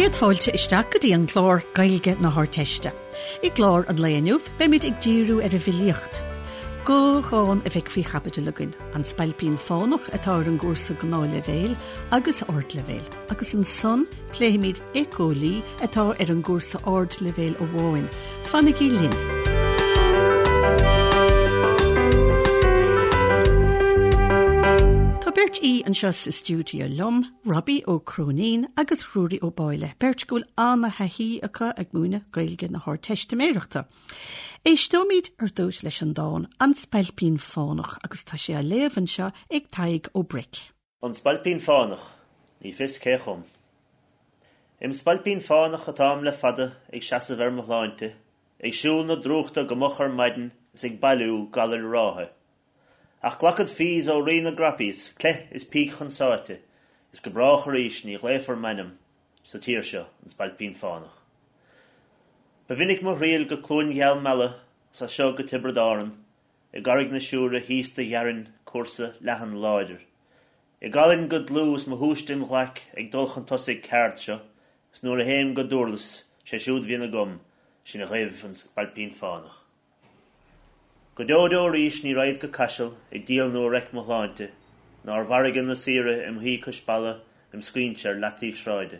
Céad fáilte isteach go dtí an clár Gaeilge na hArdteiste. I gclár an lae inniu, beimid ag díriú ar an bhfilíocht. Dhá dhán a bheidh faoi chaibidil againn, An Spailpín Fánach atá ar an gcúrsa Gnáthleibhéil agus Ardleibhéil, agus ansan pléifimid Éiceolaí atá ar an gcúrsa Ardleibhéil amháin. Fanaigí linn! Tá beirt aoi anseo sa stiúideo liom, Robbie Ó Cróinín agus Ruairí Ó Báille, beirt go bhfuil an-thaithí acu ag múineadh Gaeilge na hArdteistiméireachta. Éisteoimid ar dtús leis an dán 'An Spailpín Fánach' agus tá sé á léamh anseo ag Tadhg Ó Bric. An Spailpín Fánach, ní fios cé chum. Im spailpín fánach atáim le fada ag seasamh ar mo shláinte, ag siúl na drúchta go moch ar maidin is ag bailiú galair ráithe. Ach glacfad fees ó Rí na gCrappies, cleith is píc chun sáite, is go brách arís ní ghlaofar m'ainm sa tír seo, an Spailpín Fánach. Ba mhinic mo thriall go Cluain Gheal Meala 's as seo go Tiobraid Árann, I gCarraig na Siúire thíos do ghearrainn cúrsa leathan láidir. I gcolainn go dlúth is mo shúiste im ghlaic ag dul chun tosaigh ceard seo, is nuair a théim go Dúrlas, sé siúd bhíonn agam, sin a ghaibh an Spailpín Fánach. Go deo deo arís ní raghad go Caiseal ag díol nó ag reic mo shláinte, ná ar mhargadh na saoire im shuí cois balla im scaoinse ar leataobh sráide.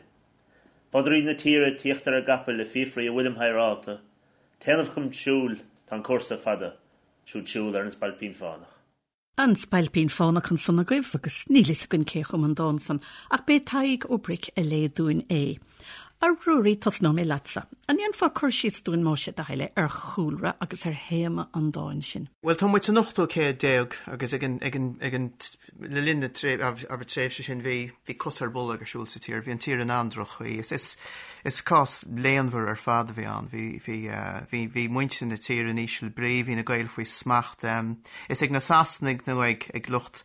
Bodairí na tíre tíocht ar a gcapaill ag fiafraí a bhfuilim hadhráilte, Téanamh chun siúil, tá an cúrsa fada, siúd siúl ar an Spailpín Fánach. An Spailpín Fánach ansan agaibh agus níl fhios againn cé chum an dán san ach b'é Tadhg Ó Bric a léigh dúinn é. A Ruairí, tosnóidh mé leatsa. An ndéanfá cur síos dúinn más é do thoil é ar chúlra agus ar théama an dáin sin? Bhuel, tá muid san ochtú céad déag agus ag an, ag an, ag an, Le linn na tréimhse sin bhí bhí cos ar bolg ar siúl sa tír, bhí an tír in an-droch-chaoi. Is is is cás léanmhar ar fad a bhí ann. Bhí bhí bhí bhí muintir na tíre in íseal brí, bhí na Gaeil faoi smacht. Is ag na Sasanaigh nó ag ag lucht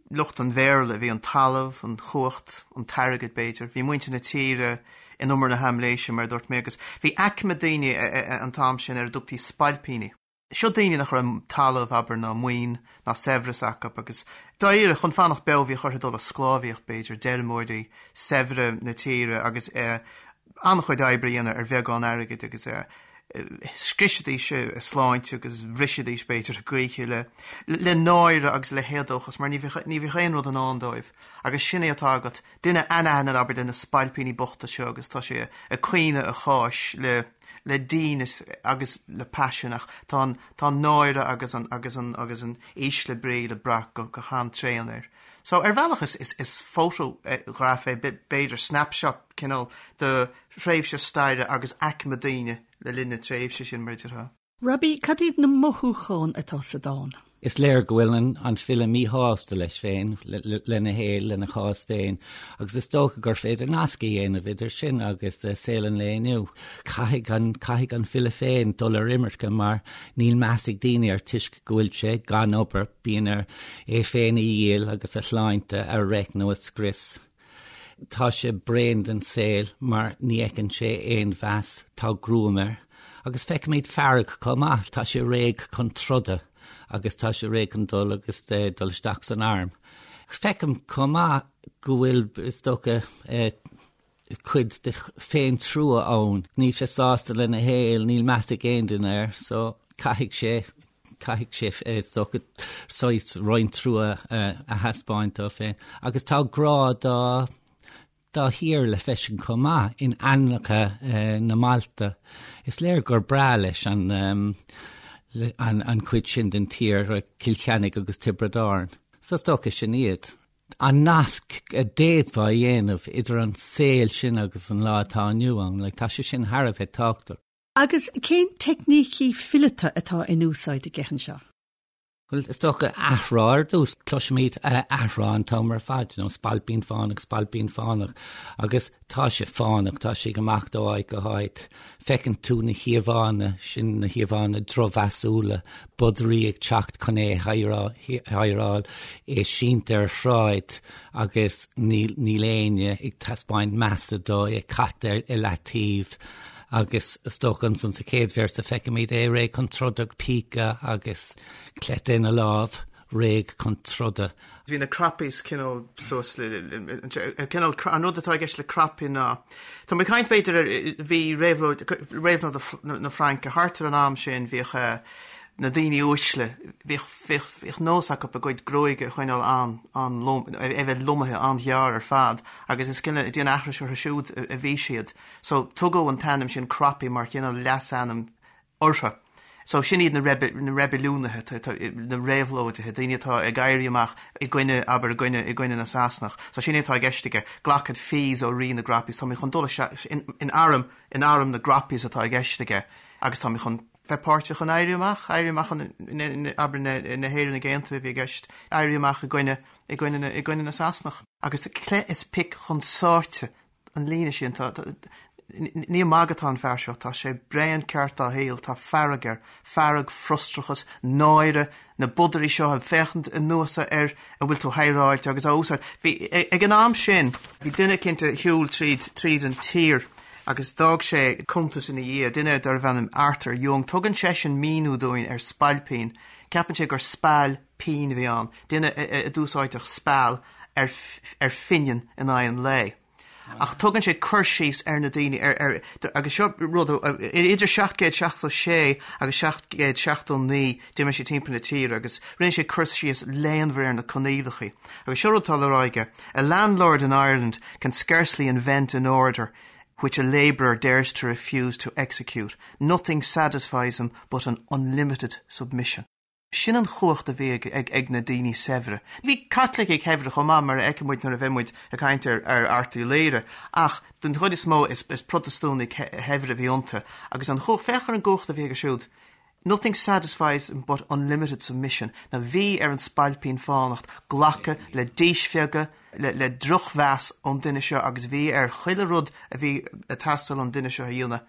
lucht an Bhéarla a bhí an talamh, an chumhacht, an t-airgead b'fhéidir. Bhí muintir na tíre in umar na haimléise mar a dúirt mé agus bhí aicme daoine an t-am sin ar a dtugtaí spailpíní. Seo daoine nach raibh talamh, abair, ná maoin, ná saibhreas acu agus dáiríre, chun fanacht beo bhíodh orthu dul i sclábhaíocht, b'fhéidir, d'fheirmeoirí saibhre na tíre agus an-chuid oibre a dhéanamh ar bheagán airgid agus scriosaidís a sláinte agus bhrisidís, b'fhéidir, a gcroíthe le le náire agus le héadóchas mar ní bheadh ní bheadh aon rud i ndán dóibh agus sin é atá agat, duine anaithnid, abair, de na spailpíní bochta seo agus tá sé ag caoineadh a cháis le le dínit agus le paisean ach tá an tá an náire agus an agus an agus an ísle brí le brath go go han-tréan air. So ar bhealach is is is fótagraf é b'fhéidir snapshot cineál de thréimhse staire agus aicme daoine le linn na tréimhse sin mar a déarfá. Robbie, cad iad na mothúcháin atá sa dán? Is léir go bhfuil an file míshásta leis féin, lena shaol, lena chás féin, agus is dócha gur féidir nasc a dhéanamh idir sin agus saol an lae inniu. Caithfidh an, caithfidh an file féin dul ar imirce mar níl meas ag daoine air toisc go bhfuil sé gan obair, bíonn air é féin a dhíol agus a shláinte a reic nó a scrios. Tá sé bréan den saol mar ní fheiceann sé aon mheas, tá gruaim air. Agus feicimid fearg chomh maith, tá sé réidh chun troda agus tá sé réidh chun dul agus dul isteach san arm. Feicim chomh maith go bhfuil, is dócha, cuid de féintrua ann. Níl sé sásta lena shaol, níl meas ag aon duine air, so caithfidh sé caithfidh sé, is dócha, saghas roinnt trua a thaispeáint dó féin. Agus tá grá dá dá thír le feiscint chomh maith in ainmneacha na mbailte. Is léir gur breá leis an an chuid sin den tír, Cill Chainnigh agus Tiobraid Árann. So is dócha sin iad. An nasc a d'fhéadfá a dhéanamh idir an saol sin agus an lá atá inniu ann, like, tá sé sin thar a bheith tábhachtach. Agus cén teicnící fileata atá in úsáid aige anseo? Bhuel, is dócha athrá ar dtús. Cloisimid athrá an t-am ar fad, you know, spailpín fánach, spailpín fánach, agus tá sé fánach, tá sé ag imeacht ó áit go háit. Feiceann tú na híomhánna sin, na híomhánna drochmheasúla, bodairí ag teacht chun é a hadhráil, é sínte ar shráid agus níl níl éinne ag taispeáint measa dó, é caite i leataobh. Agus is dócha ansan sa chéad véarsa feicimid é réidh chun troda, píce agus cleite ina lámh. Réidh chun troda. Bhí na Croppies cineál suas le, cineál, an rud atá i gceist le Croppie ná, tá mé ag caint b'fhéidir ar, bhí réabhlóid, réabhlóid na Fraince thart ar an am sin, bhíodh na daoine uaisle, bhíodh, bhíodh, bhíodh nós acu a gcuid gruaige a choinneáil an, an-lom, é bheith lomaithe an-ghearr ar fad agus is cineál ag déanamh aithris orthu siúd a bhí siad. So tugadh an t-ainm sin Croppie mar chineál leasainm orthu. So sin iad na na reibiliúnaithe, na réabhlóidithe, daoine atá ag éirí amach i gcoinne, abair, i gcoinne, i gcoinne na Sasanach. So sin é atá i gceist aige, glacad fees ó rí na gCroppies, tá mé chun dul isteach in, in arm, in arm na gCroppies atá i gceist aige agus tá mé chun bheith páirteach in éirí amach, éirí amach an, abair, na, na hÉireannaigh Aontaithe a bhí i gceist, éirí amach i gcoinne, i gcoinne na, i gcoinne na Sasanach. Agus cleith is pic chun sáite an líne sin, tá, ní ag magadh atá an fear seo, tá sé bréan ceart dá shaol, tá fearg air, fearg, frustrachas, náire, na bodairí seo ag féachaint anuas air a bhfuil tú hidhreáilte agus á úsáid. Bhí, ag an am sin, bhí duine eicínt a shiúil tríd, tríd an tír agus d'fhág sé cuntas ina dhiaidh, duine darbh ainm Arthur Young. Tugann seisean míniú dúinn ar spailpín, ceapann sé gur speal pinn a bhí ann, duine a d'úsáideadh speal ar ar phingin in aghaidh an lae. Ach tugann sé cur síos ar na daoine ar ar agus seo rud idir 776 agus 779 d'imigh sé timpeall na tíre agus rinne sé cur síos léanmhar ar na coinníollacha. Agus seo rud atá le rá aige, A landlord in Ireland can scarcely invent an order which a labourer dares to refuse to execute. Nothing satisfies him but an unlimited submission. Sin an chumhacht a bhí ag na daoine saibhre. Bhí Caitlicigh shaibhre chomh maith, mar a fheicfidh muid nuair a bheidh muid ag caint ar Art Uí Laoghaire, ach den chuid is mó is Protastúnaigh shaibhre a bhí iontu. Agus an chumhacht, féach ar an gcumhacht a bhí acu siúd. Nothing satisfies them but unlimited submission. Now bhí ar an Spailpín Fánach glacadh le díspeagadh, le drochmheas ón duine seo agus bhí air chuile rud a bhí ag teastáil ón duine seo a dhéanamh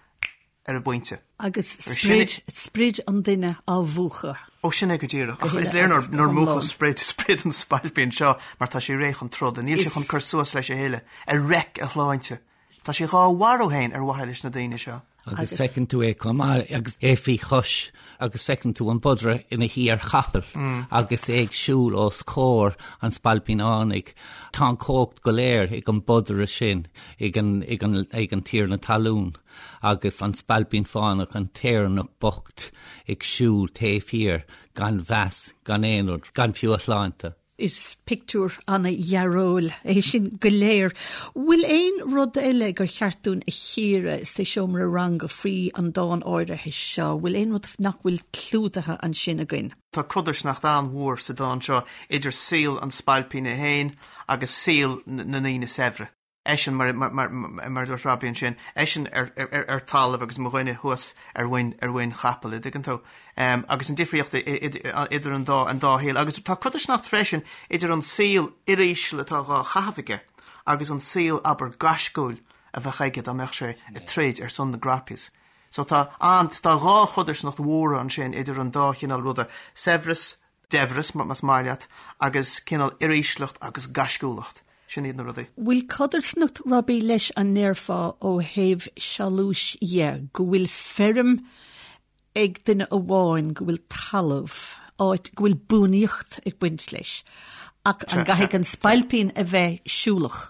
ar an bpointe. Agus sprid, sprid an duine á mhúchadh. Ó, sin é go díreach. Ach is léir nár múchadh sprid, sprid an spailpín seo mar tá sé réidh chun troda. Níl sé chun cur suas leis a thuilleadh. Ar reic a shláinte. Tá sé dhá mharú féin ar mhaithe leis na daoine seo. Agus feiceann tú é chomh maith agus é faoi chois agus feiceann tú an bodaire ina shuí ar chapall agus é ag siúl os comhair an Spailpín Fhánaigh. Tá an chumhacht go léir ag an bodaire sin, ag an, ag an, ag an tiarna talún. agus an Spailpín Fánach, an tÉireannach bocht ag siúl taobh thiar, gan mheas, gan aon rud, gan fiú a shláinte. Is pictiúr an-dhearóil é sin go léir. Bhfuil aon rud eile gur cheart dúinn a chíoradh sa seomra ranga faoi an dán áirithe seo? Bhfuil aon rud nach bhfuil clúdaithe ansin againn? Tá codarsnacht an-mhór sa dán seo idir saol an spailpín é féin agus saol na ndaoine saibhre. eisean, mar a dúirt Robbie ansin, eisean ar talamh agus mo dhuine thuas ar mhuin, ar mhuin chapaill, an dtuigeann tú? Agus an difríocht idir an dá, an dá shaol. Agus tá codarsnacht freisin idir an saol uiríseal atá dhá chaitheamh aige agus an saol, abair, gaisciúil a bheadh aige dá mbeadh sé ag troid ar son na gCroppies. So tá an, tá dhá chodarsnacht mhóra ansin idir an dá chineál ruda, saibhreas, daibhreas, más maith leat, agus cineál uirísleacht agus gaisciúlacht. Sin iad na rudaí. Bhfuil codarsnacht, Robbie, leis an ndéarfá ó thaobh sealúis dhe, go bhfuil feirm ag duine amháin, go bhfuil talamh, áit, go bhfuil buanaíocht ag baint leis, ach an gcaithfidh an spailpín a bheith siúlach?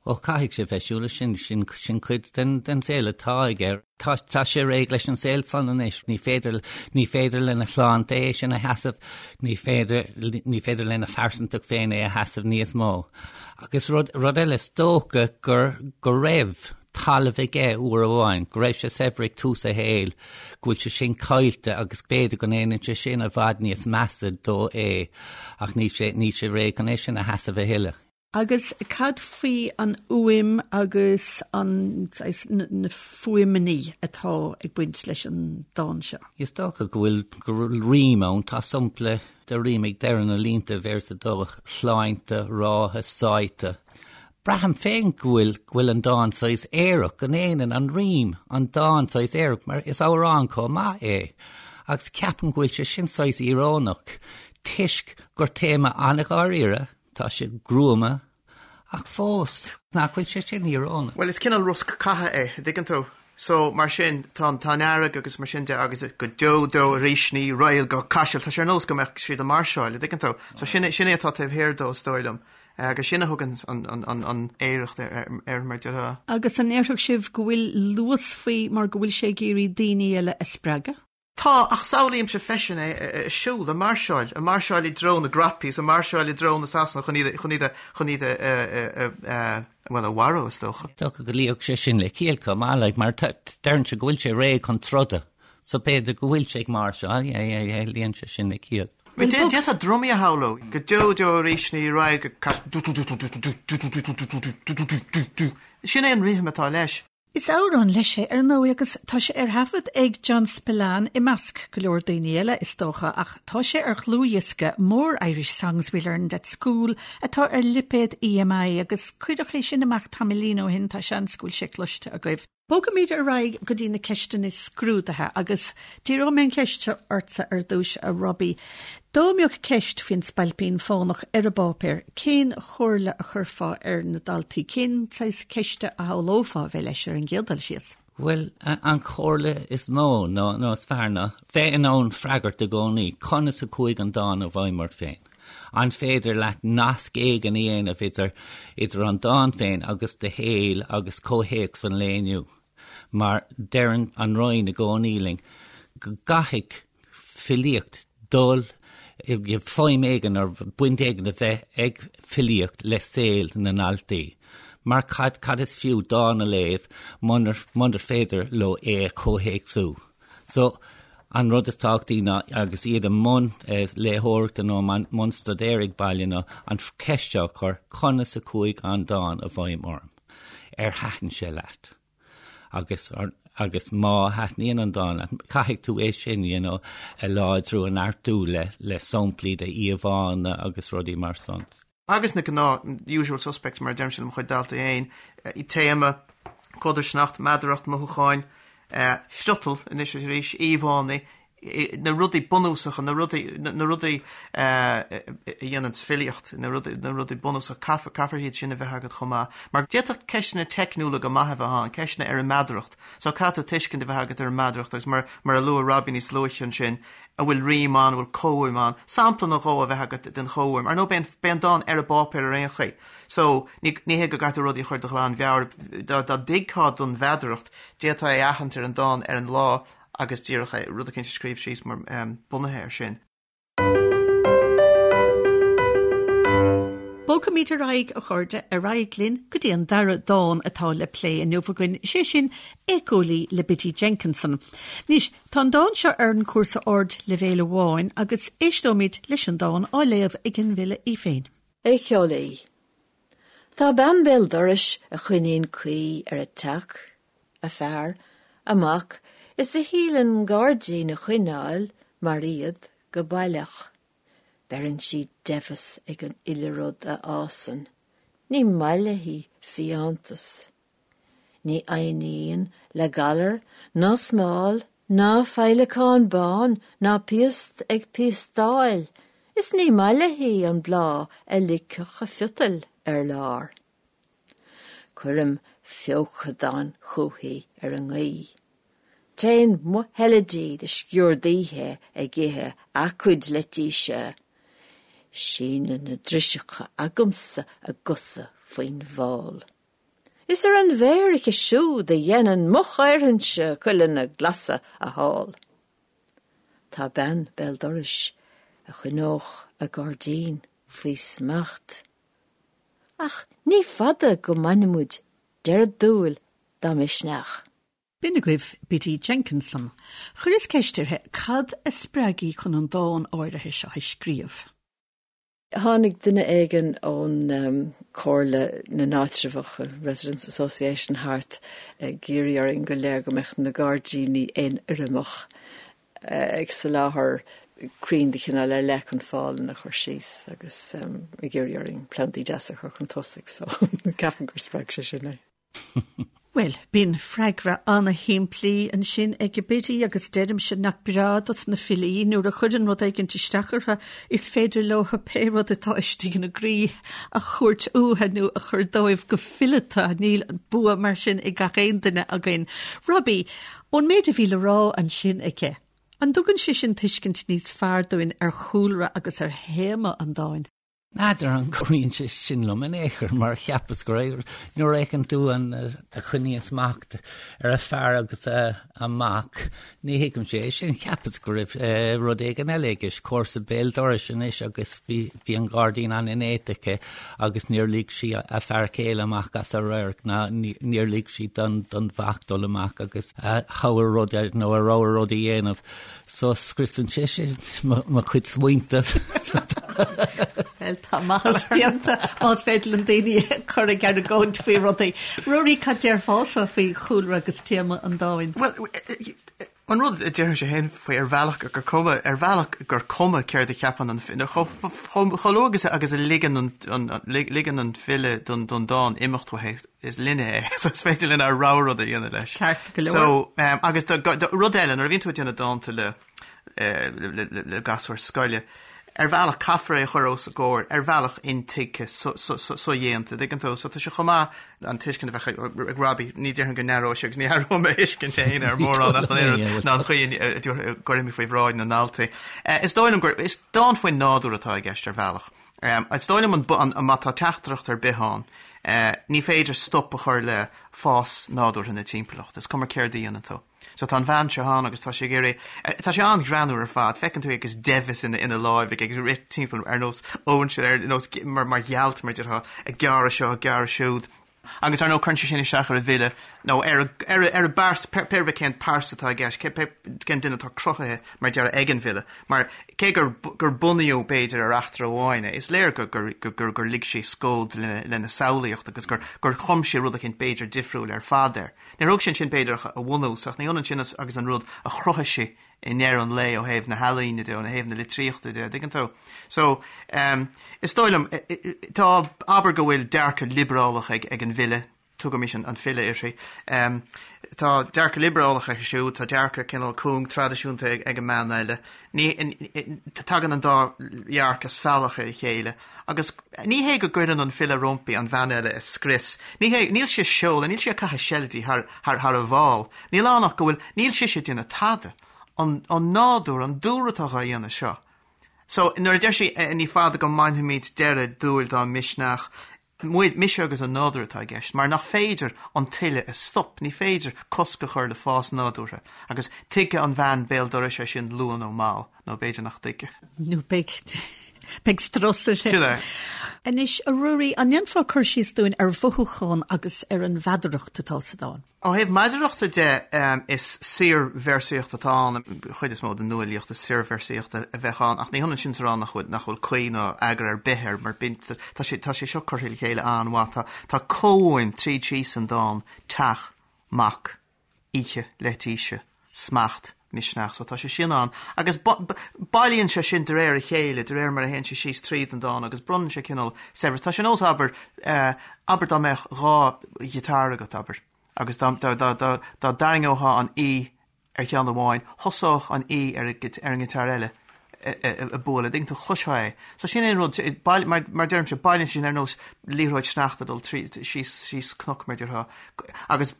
Ó, caithfidh sé bheith siúlach, sin, sin, sin cuid den, den saol atá aige. Tá, tá sé réidh leis an saol san anois. Ní féidir, ní féidir lena shláinte é sin a sheasamh, ní féidir, ní féidir lena phearsantacht féin é a sheasamh níos mó. Agus rud, rud eile, is dócha gur, go raibh talamh aige uair amháin, go raibh sé saibhir ag tús a shaoil, go bhfuil sé sin caillte agus b'fhéidir go ndéanann sé sin i bhfad níos measa dó é, ach níl sé, níl sé réidh chun é sin a sheasamh a thuilleadh. Agus cad faoi an fhuaim agus an, saghas, na fuaimeanna atá ag baint leis an dán seo? Is dócha go bhfuil, go bhfuil rím ann. Tá sampla de rím ag deireadh na línte, véarsa 2, shláinte, ráithe, sáite. Braithim féin go bhfuil, go bhfuil an dán saghas aerach, go ndéanann an rím an dán saghas aerach, mar is amhrán chomh maith é. Agus ceapaim go bhfuil sé sin saghas íorónach, toisc gur téama an-dháiríre, Tá sé gruama, ach fós, nach bhfuil sé sin íorónach? Bhuel, is cineál rosc catha é, an dtuigeann tú? So, mar sin, tá an, tá an fhearg agus mar sin de agus go deo deo arís ní raghad go Caiseal, tá sé ar nós go mbeadh siad ag máirseáil, an dtuigeann tú? So sin é, sin é atá taobh thiar dó is dóigh liom. Agus sin a thugann an, an, an, an fhearacht air, air mar déarfá. Agus an ndéarfadh sibh go bhfuil luas faoi mar go bhfuil sé ag iarraidh daoine eile a spreagadh? Tá, ach samhlaímse freisin é ag siúl, ag máirseáil, ag máirseáil i dtreo na gcnaipí is ag máirseáil i dtreo na Sasanach chun iad, chun iad a, chun iad a, a, a, bhuel, a mharú, is dócha. Is dócha go luífeadh sé sin le ciall chomh maith, like, mar deireann sé go bhfuil sé réidh chun troda, so b'fhéidir go bhfuil sé ag máirseáil, yeah, yeah, yeah, luíonn sé sin le ciall. D'fhéadfá drumaí a shamhlú, go deo deo arís ní raghad go Caiseal, Sin é an rithim atá leis. Is amhrán leis é, ar ndóigh, agus tá sé ar thaifead ag John Spillane i measc go leor daoine eile, is dócha, ach tá sé ar dhlúthdhiosca More Irish Songs We Learned at School atá ar lipéad EMI agus cuireadh é sin amach tamaillín ó shin, tá seans go bhfuil sé cloiste agaibh. Bogfaimid ar aghaidh go dtí na ceisteanna scrúdaithe agus díreoidh mé an cheist seo ortsa ar dtús, a Robbie. Dá mbeadh ceist faoin Spailpín Fánach ar an bpáipéar, cén chomhairle a chuirfeá ar na daltaí? Cén saghas ceiste a shamhlófá a bheith leis ar an gcéad dul síos? Bhuel, an chomhairle is mó nó nó is fearr ná bheith in ann freagairt i gcónaí conas a chuaigh an dán i bhfeidhm ort féin. An féidir leat nasc éigin a dhéanamh idir idir an dán féin agus do shaol agus comhthéacs an lae inniu? Mar deireann an Roinn i gcónaí linn go gcaithfidh filíocht dul i bhfeidhm éigin nó baint éigin a bheith ag filíocht le saol na ndaltaí. Mar cad, cad is fiú dán a léamh munar, munar féidir leo é a chomhthéacsú? So, an rud is tábhachtaí ná, agus iad i mbun léitheoireachta nó i mbun staidéir ag baile ná an cheist seo a chur, conas a chuaigh an dán i bhfeidhm orm? Ar thaitin sé leat? Agus, agus má thaitníonn an dán leat, caithfidh tú é sin, you know, a láidriú, a neartú le, le samplaí de íomhánna agus rudaí mar san. Agus na gnáth usual suspects mar a deirimse le mo chuid daltaí féin, téama, codarsnacht, meadaracht, mothúcháin, friotal anois is arís, íomhánna, na rudaí bunúsacha, na rudaí, na rudaí a dhéananns filíocht, na rudaí, na rudaí bunúsacha, caithfear, caithfear iad sin a bheith agat chomh maith. Mar d'fhéadfadh ceisteanna teicniúla go maith a bheith ann, ceisteanna ar an meadaracht. So caithfidh tú tuiscint a bheith agat ar an meadaracht agus mar, mar a luaigh Robbie níos luaithe ansin, an bhfuil rím ann, an bhfuil comhfhuaim ann, sampla nó dhó a bheith agat den chomhfhuaim. Ar ndóigh, beidh an, beidh an dán ar an bpáipéar ar aon chaoi. So, ní, ní hé go gcaithfidh tú rudaí a chur de ghlanmheabhair. Dá, dá dtuigfeá don mheadaracht, d'fhéadfá é a aithint ar an dán ar an lá agus díreach é, rud eicínt a scríobh síos mar, bunaithe air sin. Bogfaimid ar aghaidh, a chairde, ar aghaidh linn go dtí an dara dán atá le plé inniu againn, sé sin Éiceolaí le Biddy Jenkinson. Anois, tá an dán seo ar an chúrsa ardleibhéil amháin agus éisteoimid leis an dán á léamh ag an bhfile í féin. Éiceolaí. Tá bean béal dorais a choinníonn caoi ar a teach, a fear, a mac is a shíleann gairdín a choinneáil mar iad go baileach. Beireann sí deimheas ag an uile rud a fhásann. Ní maith léi fiántas. Ní fhoighníonn le galar ná smál ná féileacán bán ná piast ag piastáil is ní maith léi an bláth a ligfeadh a phiotail ar lár. Cuirim feochadán chúithi ar an ngaoth. Téann mo sheilidí de sciuird oíche ag ithe a cuid leitíse. Síneann na driseacha agamsa a gcosa faoin bhfál. Is ar an bhféar aici siúd a dhéanann mo chaorthainse cuileanna glasa a thál. Tá bean béal dorais a choinneodh a gairdín faoi smacht. Ach ní fada go mbainfimid deireadh dúil dá misneach. B'in agaibh Biddy Jenkinson. Chuireas ceist uirthi cad a spreag í chun an dán áirithe seo a scríobh. Tháinig duine éigin ón Comhairle na nÁitreabhach, Residents Association, thart ag iarraidh orainn go léir go mbeadh na gairdíní aonfhoirmeach. ag soláthar crainn de chineál ar leith chun fálanna a chur síos agus ag iarraidh orainn plandaí deasa a chur chun tosaigh so ceapaim gur spreag sé sin é. Bhuel, bíonn freagra ana-shimplí ansin ag Biddy agus deirimse nach breá dos na filí nuair a chuireann rud éigint isteach orthu, is féidir leo pé rud atá istigh ina gcroí a thabhairt uathu nó a chur dóibh go fileata. Níl bua mar sin ag gach aon duine againn. Robbie, ón méid a bhí le rá ansin aici, an dtugann sé sin tuiscint níos fearr dúinn ar chúlra agus ar théama an dáin? N'fheadar an gcabhraíonn sé sin liom in aon chor mar cheapas go raibh, nuair a fheiceann tú an a choinníonn smacht ar a fear agus a mac, ní thuigimse é sin, cheapas go raibh rud éigin eile i gceist, comharsa béal dorais anois agus bhí bhí an gairdín an-néata aici agus níor lig sí a fear céile amach as a radharc ná níor lig sí don don mhac dul amach agus a thogha rud nó a rogha rud a dhéanamh. So scriosann sé sin mo chuid smaointe. Bhuel, tá maitheas déanta más féidir linn daoine a chur ag argóint faoi rudaí. Ruairí, cad déarfása faoi chúlra agus téama an dáin? Bhuel, an rud a déarfainnse féin faoi ar bhealach gur cuma, ar bhealach gur cuma céard a cheapann an file, chomh luath agus agus a ligeann an, ligeann an file don dán imeacht uaithi, is linne é, so is féidir linn ár rogha rud a dhéanamh leis. Ceart go leor. So, um, agus do, do, rud eile, nuair a bhíonn tú ag déanamh dánta le, eh, le, le, le, le gasúir scoile, ar bhealach caithfear é a chur os a gcomhair, ar bhealach intuigthe, so, so, so, sodhéanta, dtuigeann tú? So tá sé chomh maith an tuiscint a bheadh ag, ag Robbie, ní déarfainn go n-athróidh sé agus ní athróidh mo thuiscint féin ar mórán ach an oiread ná an chaoi a a gcuirfidh mé faoi bhráid na ndaltaí. Eh, is dóigh liom gur, is dán faoin nádúr atá i gceist ar bhealach. Is dóigh liom an, má tá teachtaireacht ar bith ann, ní féidir stop a chur le fás nádúrtha na timpeallachta, is cuma céard a dhéanann tú. So tá an bhean seo ann agus tá sí ag iarraidh, tá sé an-ghreannmhar ar fad, feiceann tú é agus deimheas ina ina láimh aige ag rith timpeall ar nós óinseir, ar nós mar mar ghealt mar déarfá, ag gearradh seo, ag gearradh siúd. Agus ar ndóigh cuireann sé sin isteach ar an bhfile nó ar ar ar an bpearsa, pé ar bith cén pearsa atá i gceist, cé pé cén duine atá cruthaithe mar déarfá ag an bhfile. Mar cé gur gur bunaíodh b'fhéidir ar eachtra amháin é, is léir gur gur gur gur lig sé scód lena lena samhlaíocht agus gur gur chum sé rud eicínt b'fhéidir difriúil ar fad air. Níor thóg sé ansin b'fhéidir ach a bhunús ach ní hionann sin agus an rud a chruthaigh sé i ndeireadh an lae ó thaobh na healaíne de, ó thaobh na litríochta de, dtuigeann tú? So, um, is dóigh liom, tá, abair go bhfuil dearcadh liobrálach ag, ag an bhfile, tugaimis an, an file uirthi, um, tá dearcadh liobrálach aici siúd, tá dearcadh cineál cúng traidisiúnta ag, ag an mbean eile. Ní, tagann an dá dhearcadh salach ar a chéile agus ní hé go gcuireann an file roimpi an bhean eile a scrios, ní hé, níl sí ag seoladh, níl sí ag caitheamh seilidí thar, thar, thar a bhál. Níl ann ach go bhfuil, níl sise ag déanamh tada. An, an nádúr, an dúlra atá dhá dhéanamh seo. So, nuair a deir sí, ní fada go mbainfimid deireadh dúil dá misneach, muid, mise agus an nádúr atá i gceist, mar nach féidir an tuile a stop, ní féidir cosc a chur le fás nádúrtha. Agus tuigfidh an bhean béal dorais é sin luath nó mall, nó b'fhéidir nach dtuigfidh. Nó beidh, beidh strus uirthi. Sin é. Anois, a Ruairí, an ndéanfá cur síos dúinn ar mhothúchán agus ar an mheadaracht atá sa dán? Ó thaobh meadarachta de, is saorvéarsaíocht atá ann. An chuid is mó den nuafhilíocht is saorvéarsaíocht a bheadh ann, ach ní hionann sin is a rá nach bhfuil, nach bhfuil caoi ná eagar ar bith air, mar bíonn, tá sé, tá sé seo curtha le chéile an-mhaith. Tá, tá comhfhuaim tríd síos an dán, teach, mac, oíche, leitíse, smacht, misneach. So tá sé sin ann. Agus bailíonn sé sin de réir a chéile, de réir mar a théann sé síos tríd an dán agus bronnann sé cineál saibhreas. Tá sé nós, abair, abair dá mbeadh dha ghiotár agat, abair, agus dá, dá, dá, dá, dá dtarraingeofá an E ar cheann amháin, thosódh an E ar, ar an ngiotár eile ag bualadh, dtuigeann tú, chloisfeá é. So sin é an rud, mar, mar deirimse, bailíonn sé sin ar nós liathróid sneachta dul trí, síos, síos cnoc, mar déarfá, agus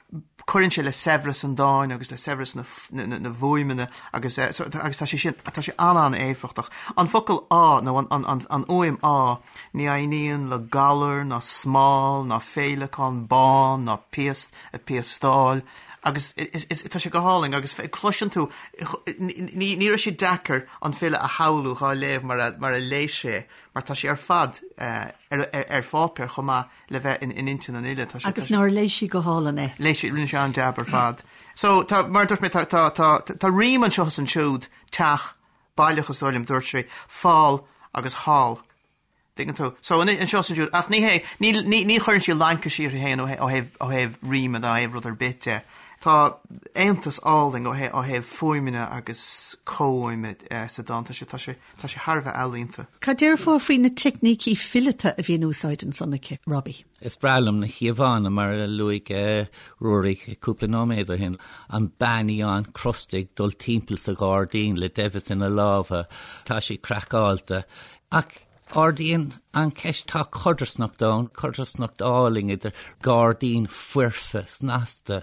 cuireann sé le saibhreas an dáin agus le saibhreas na, na, na bhfuaimeanna agus, eh, so, agus tá sé sin, tá sé an-an-éifeachtach. An focal ádh, nó an, an, an, an fhuaim ádh, ní aithníonn le galar ná smál ná féileacán bán ná piast ag piastáil, Agus is, tá sé go hálainn agus cloiseann tú, ní, ní raibh sé deacair an file a shamhlú dhá léamh mar a, mar a léigh sé, mar tá sé ar fad ar, ar, ar pháipéar chomh maith le bheith in, in intinn an fhile. Tá sé, Agus nár léigh sí go hálainn é? Léigh sí, rinne sé an-jab ar fad. So, tá, mar a dúirt mé, tá, tá, tá, tá rím anseo is ansiúd, teach, baileach is dóigh liom, dúirt sé, fál agus thall. Tuigeann tú? So, anseo is ansiúd, ach ní hé, ní, ní, ní chuireann sí laincis uirthi féin ó thaobh, ó thaobh, ó thaobh ríme ná ó thaobh rud ar bith de. Tá aontas álainn ó thaobh fuaimeanna agus comhfhuaime sa dán. Tá sé, tá sé, tá sé thar a bheith ealaíonta. Cad déarfá faoi na teicnící fileata a bhí in úsáid ansan aici, Robbie? Is breá liom na híomhánna, mar a luaigh Ruairí cúpla nóiméad ó shin, an bean fhiáin crosta ag dul timpeall sa ghairdín le deimheas ina lámha, tá sí craiceáilte. Ach ardaíonn an cheist, tá codarsnacht ann, codarsnacht álainn idir gairdín foirfe snasta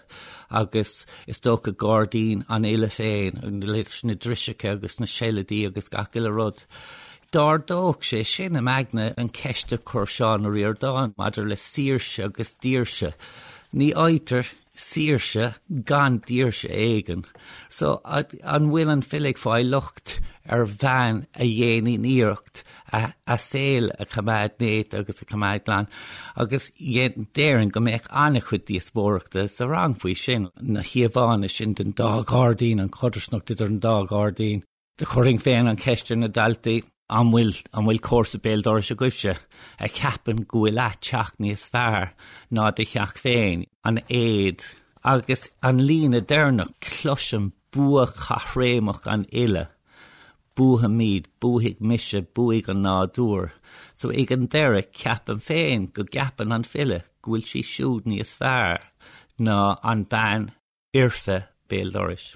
agus is dócha gairdín an fhile féin, leis na driseacha agus na seilidí agus gach uile rud. D'ardódh sé sin im aigne an cheist a chuir Seán Ó Ríordáin maidir le saoirse agus daoirse. Ní fhaightear saoirse gan daoirse éigin. So, an bhfuil an file ag fáil locht ar bhean a dhéanann iarracht a saol a choimeád néata agus a choimeád glan? Agus déarfainn go mbeadh an-chuid díospóireachta sa rang faoi sin, na híomhánna sin den dá ghairdín, an chodarsnacht idir an dá ghairdín. Do chuirfinn féin an cheist ar na daltaí, an bhfuil, an bhfuil comharsa béal dorais agaibhse a cheapann go bhfuil a teach níos fearr ná do theach féin, an éad agus an líne deireanach, cloisim bua caithréimeach an fhile, buafaimid, buafaidh mise, buafaidh an nádúr. So ag an deireadh, ceapaim féin go gceapann an file go bhfuil sí siúd níos fearr ná an bean fhoirfe béal dorais.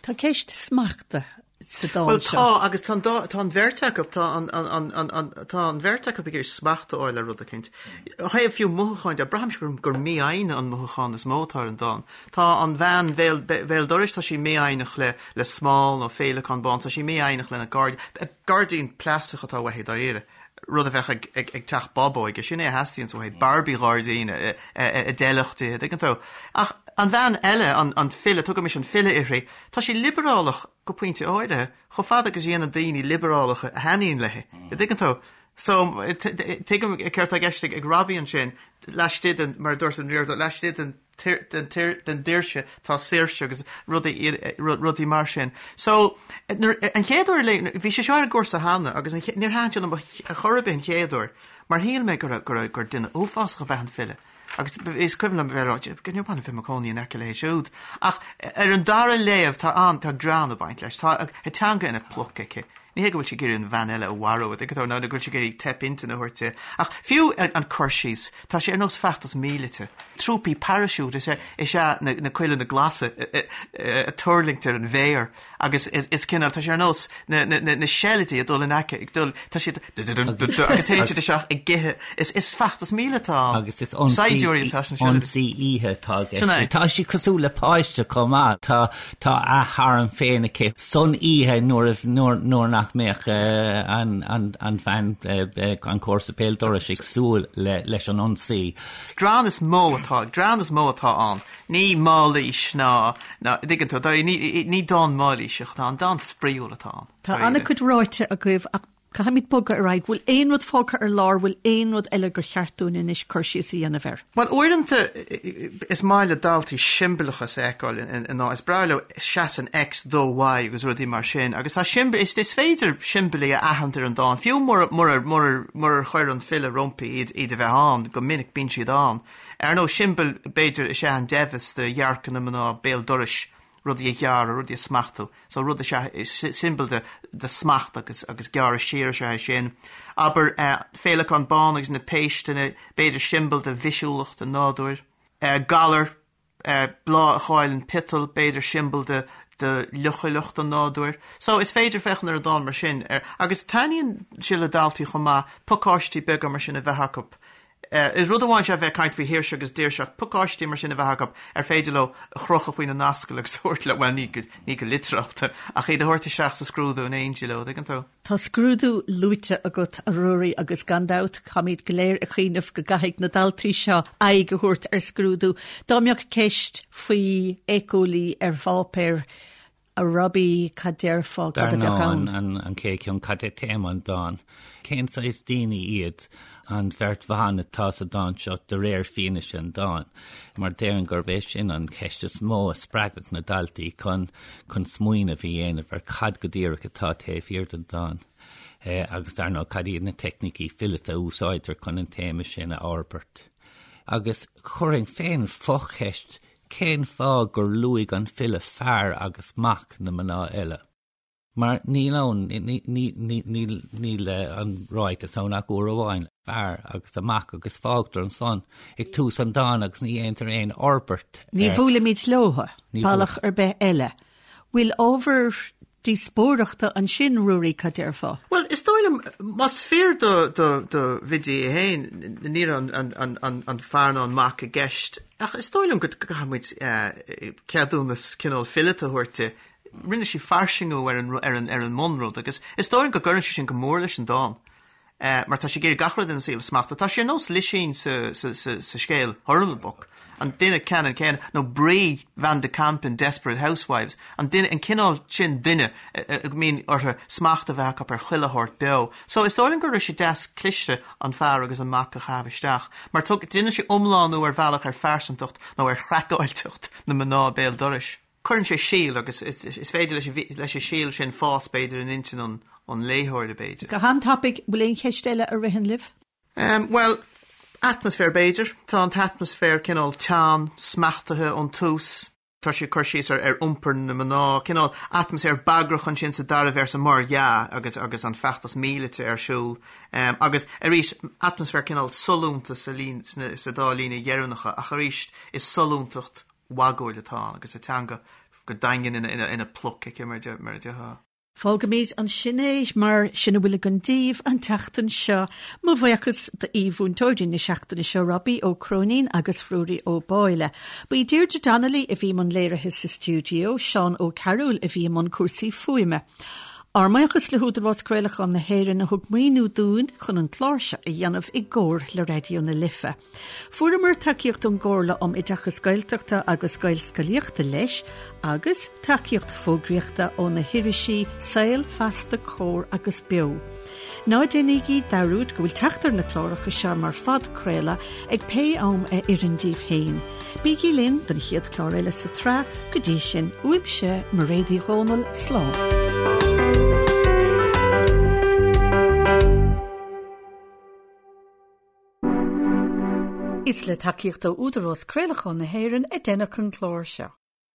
Tá ceist smachta sa dán Bhuel seo. tá, agus tá an dá, tá an bheirt acu, tá an, an, an, an, an, tá an bheirt acu ag iarraidh smacht a fháil ar rud eicínt. Ó thaobh fiú mothúcháin de, braithimse gur, gur mífhoighne an mothúchán is mó atá ar an dán. Tá an bhean bhéal, bhéal dorais, tá sí mífhoighneach le, le smál nó féileacán bán, tá sí mífhoighneach lena gairdín, gairdín plaisteach atá uaithi dáiríre. rud a bheadh ag teach bábóige, sin é a theastaíonns uaithi, Barbie ghairdín a d'fheilfeadh di, an dtuigeann tú. Ach an bhean eile, an file, tugaimis an file uirthi, tá sí liobrálach go pointe áirithe, chomh fada agus a dhéanann daoine liobrálacha a thaitníonn léi, an dtuigeann tú. So, tuigim céard atá i gceist ag Robbie ansin, laistigh den, mar a dúirt an Ríordánach, laistigh den den daoirse tá saoirse agus rudaí rudaí mar sin. So nuair an chéad uair a léigh bhí sé seo ar an gcúrsa cheana agus an níor thaitin sé liom ar chor ar bith an chéad uair mar shíl mé go raibh go raibh gur duine uafásach ab ea an file. Agus is cuimhin liom bheith ag rá go níor mhaith liom bheith i mo chónaí in aice léi siúd. Ach ar an dara léamh tá an tá greann ag baint leis. Tá a teanga ina pluc aici. Ní hé go bhfuil sí ag iarraidh an bhean eile a mharú, an dtuigeann tú, nó go bhfuil sí ag iarraidh teip intinne a thabhairt di. Ach fiú an cur síos, tá sé ar nós feachtas míleata. Trúpaí paraisiúit is ea is ea na cuileanna glasa ag tuirlingt ar an bhféar agus is cineál, tá sé ar nós na seilidí ag dul in aice, ag dul, tá siad agus téann siad isteach ag ithe. Is feachtas míleata atá ann. Agus is ionsaí oíche atá i gceist. Tá sí cosúil le páiste chomh maith. Tá Tá a harm féin aici san oíche nuair nuair nach mbeadh an an bhean an comharsa béal dorais ag súil leis an ionsaí. Greann is mó atá, greann is mó atá ann. Ní mailís ná, ná, dtuigeann tú, ní, ní dán mailíseach atá ann, dán spraíúil atá ann. Tá an-chuid ráite agaibh ach Caithfimid bogadh ar aghaidh. Bhfuil aon rud fágtha ar lár, bhfuil aon rud eile gur cheart dúinn anois cur síos a dhéanamh air? Bhuel, uaireanta is maith le daltaí siombalachas a fheiceáil i ndán. Is breá leo seasann X do Y agus rudaí mar sin. Agus tá siombail, is is féidir siombailí a aithint ar an dán, fiú mura mura mura murar chuir an file roimpi iad iad a bheith ann, go minic bíonn siad ann. Ar ndóigh, siombail, b'fhéidir, is ea an deimheas do dhearcadh na mná béal dorais, rudaí a ghearradh, rudaí a smachtú. So rud is ea, siombail de, de smacht agus, agus gearradh siar is ea é sin. Abair, féileacán bán agus na péisteanna, b'fhéidir siombail de bhisiúlacht an nádúir. Galar, bláth a chailleann piotail, b'fhéidir siombail de, de leochaileacht an nádúir. So is féidir féachaint ar an dán mar sin, ar, agus taitníonn sé le daltaí chomh maith pacáistí beaga mar sin a bheith acu Is rud amháin is ea bheith ag caint faoi shaoirse agus daoirse ach pacáistí mar sin a bheith acu ar féidir leo a chrochadh faoina n-ascaill agus a thabhairt leo, bhuel, ní go, ní go litearálta, ach iad a thabhairt isteach sa scrúdú in éindí leo, dtuigeann tú? Tá scrúdú luaite agat, a Ruairí, agus gan dabht, táimid go léir ag cuimhneamh go gcaithfidh na daltaí seo aghaidh a thabhairt ar scrúdú. Dá mbeadh ceist faoi éiceolaí ar pháipéar, A Robbie, cad déarfá, cad a bheadh ann? Dar ndóigh, an chéad cheann, cad é téama an dáin? Cén saghas daoine iad an bheirt bhan atá sa dán seo de réir fianaise an dáin? Mar déarfainn gurb é sin an cheist is mó a spreagfadh na daltaí chun chun smaoineamh a dhéanamh ar cad go díreach atá taobh thiar den dán. Agus dar ndóigh, cad iad na teicnící fileata a úsáidtear chun an téama sin a fhorbairt? Agus chuirfinn féin focheist. Cén fáth gur luaigh an file fear agus mac na mná eile? Mar níl ann, níl an ráiteas ann ach uair amháin, fear agus a mac agus fágtar ansan ag tús an dáin agus ní dhéantar aon fhorbairt air. Ní bhuailimid leo bealach ar bith eile. Bhfuil ábhar díospóireachta ansin, Ruairí, cad déarfá? Bhuel, is dóigh liom, más fíor do Bhiddy é féin, ní raibh an fear ná an mac i gceist, ach is dóigh liom go gcaithfidh muid ceadúnas cineál fileata a thabhairt di. Rinne sí fairsingiú ar an ar an ar an mbunrud agus is dóigh liom go gcuireann sé sin go mór leis an dán. Mar tá sí ag iarraidh gach rud ina saol a smachtú. Tá sí ar nós Lisín sa sa sa sa scéal Hurlbuck, an duine ceannann céanna, nó Bree Van de Kamp in Desperate Housewives, an duine, an cineál sin duine a mbíonn orthu smacht a bheith acu ar chuile shórt beo. So is dóigh liom go raibh sé deas cliste an fear agus an mac a chaitheamh isteach, mar tug, déanann sé iomlánú ar bhealach ar phearsantacht nó ar chraiceáilteacht na mná béal dorais. Cuireann sé síol agus is féidir leis an síol sin fás, b'fhéidir, in intinn an léitheora, b'fhéidir. Go han-tapaidh, bhfuil aon cheist eile a ritheann libh? Bhuel, atmaisféar, b'fhéidir. Tá an t-atmaisféar cineál teann, smachtaithe ón tús. Tá sé ag cur síos ar iompar na mná, cineál atmaisféar bagrach ansin sa dara véarsa, mar dhea, agus agus an feachtas míleata ar siúl. Agus arís, atmaisféar cineál sollúnta sa líne, sa dá líne dheireanacha, ach arís, is sollúntacht mhagúil atá ann agus a teanga go daingean ina pluc aici, mar a déarfá. Fágfaimid ansin é, mar sin a bhfuil againn daoibh an tseachtain seo. Mo bhuíochas d'aoi-mhúinteoirí na seachtaine seo, Robbie Ó Cróinín agus Ruairí Ó Báille. Ba í Deirdre Donnelly a bhí i mbun léirithe sa stiúideo, Seán Ó Cearúil a bhí i mbun cúrsaí fuaime. Ár mbuíochas le hÚdarás Craolacháin na hÉireann a thug maoiniú dúinn chun an clár seo a dhéanamh i gcomhar le Raidió na Life. Fuaireamar tacaíocht ón gComhairle um Oideachas Gaeltachta agus Gaelscolaíochta leis agus tacaíocht fógraíochta ó na hirisí Saol, Feasta, Comhar agus Beo. Ná déanaígí dearúd go bhfuil teacht ar na cláracha seo mar phodchraoladh ag pé am a oireann daoibh féin. Bígí linn don chéad chlár eile sa tsraith, go dtí sin, uaimse, Mairéad Uí Dhomhnaill, slán. Is le tacaíocht ó Údarás Craolacháin na hÉireann a deineadh an clár seo.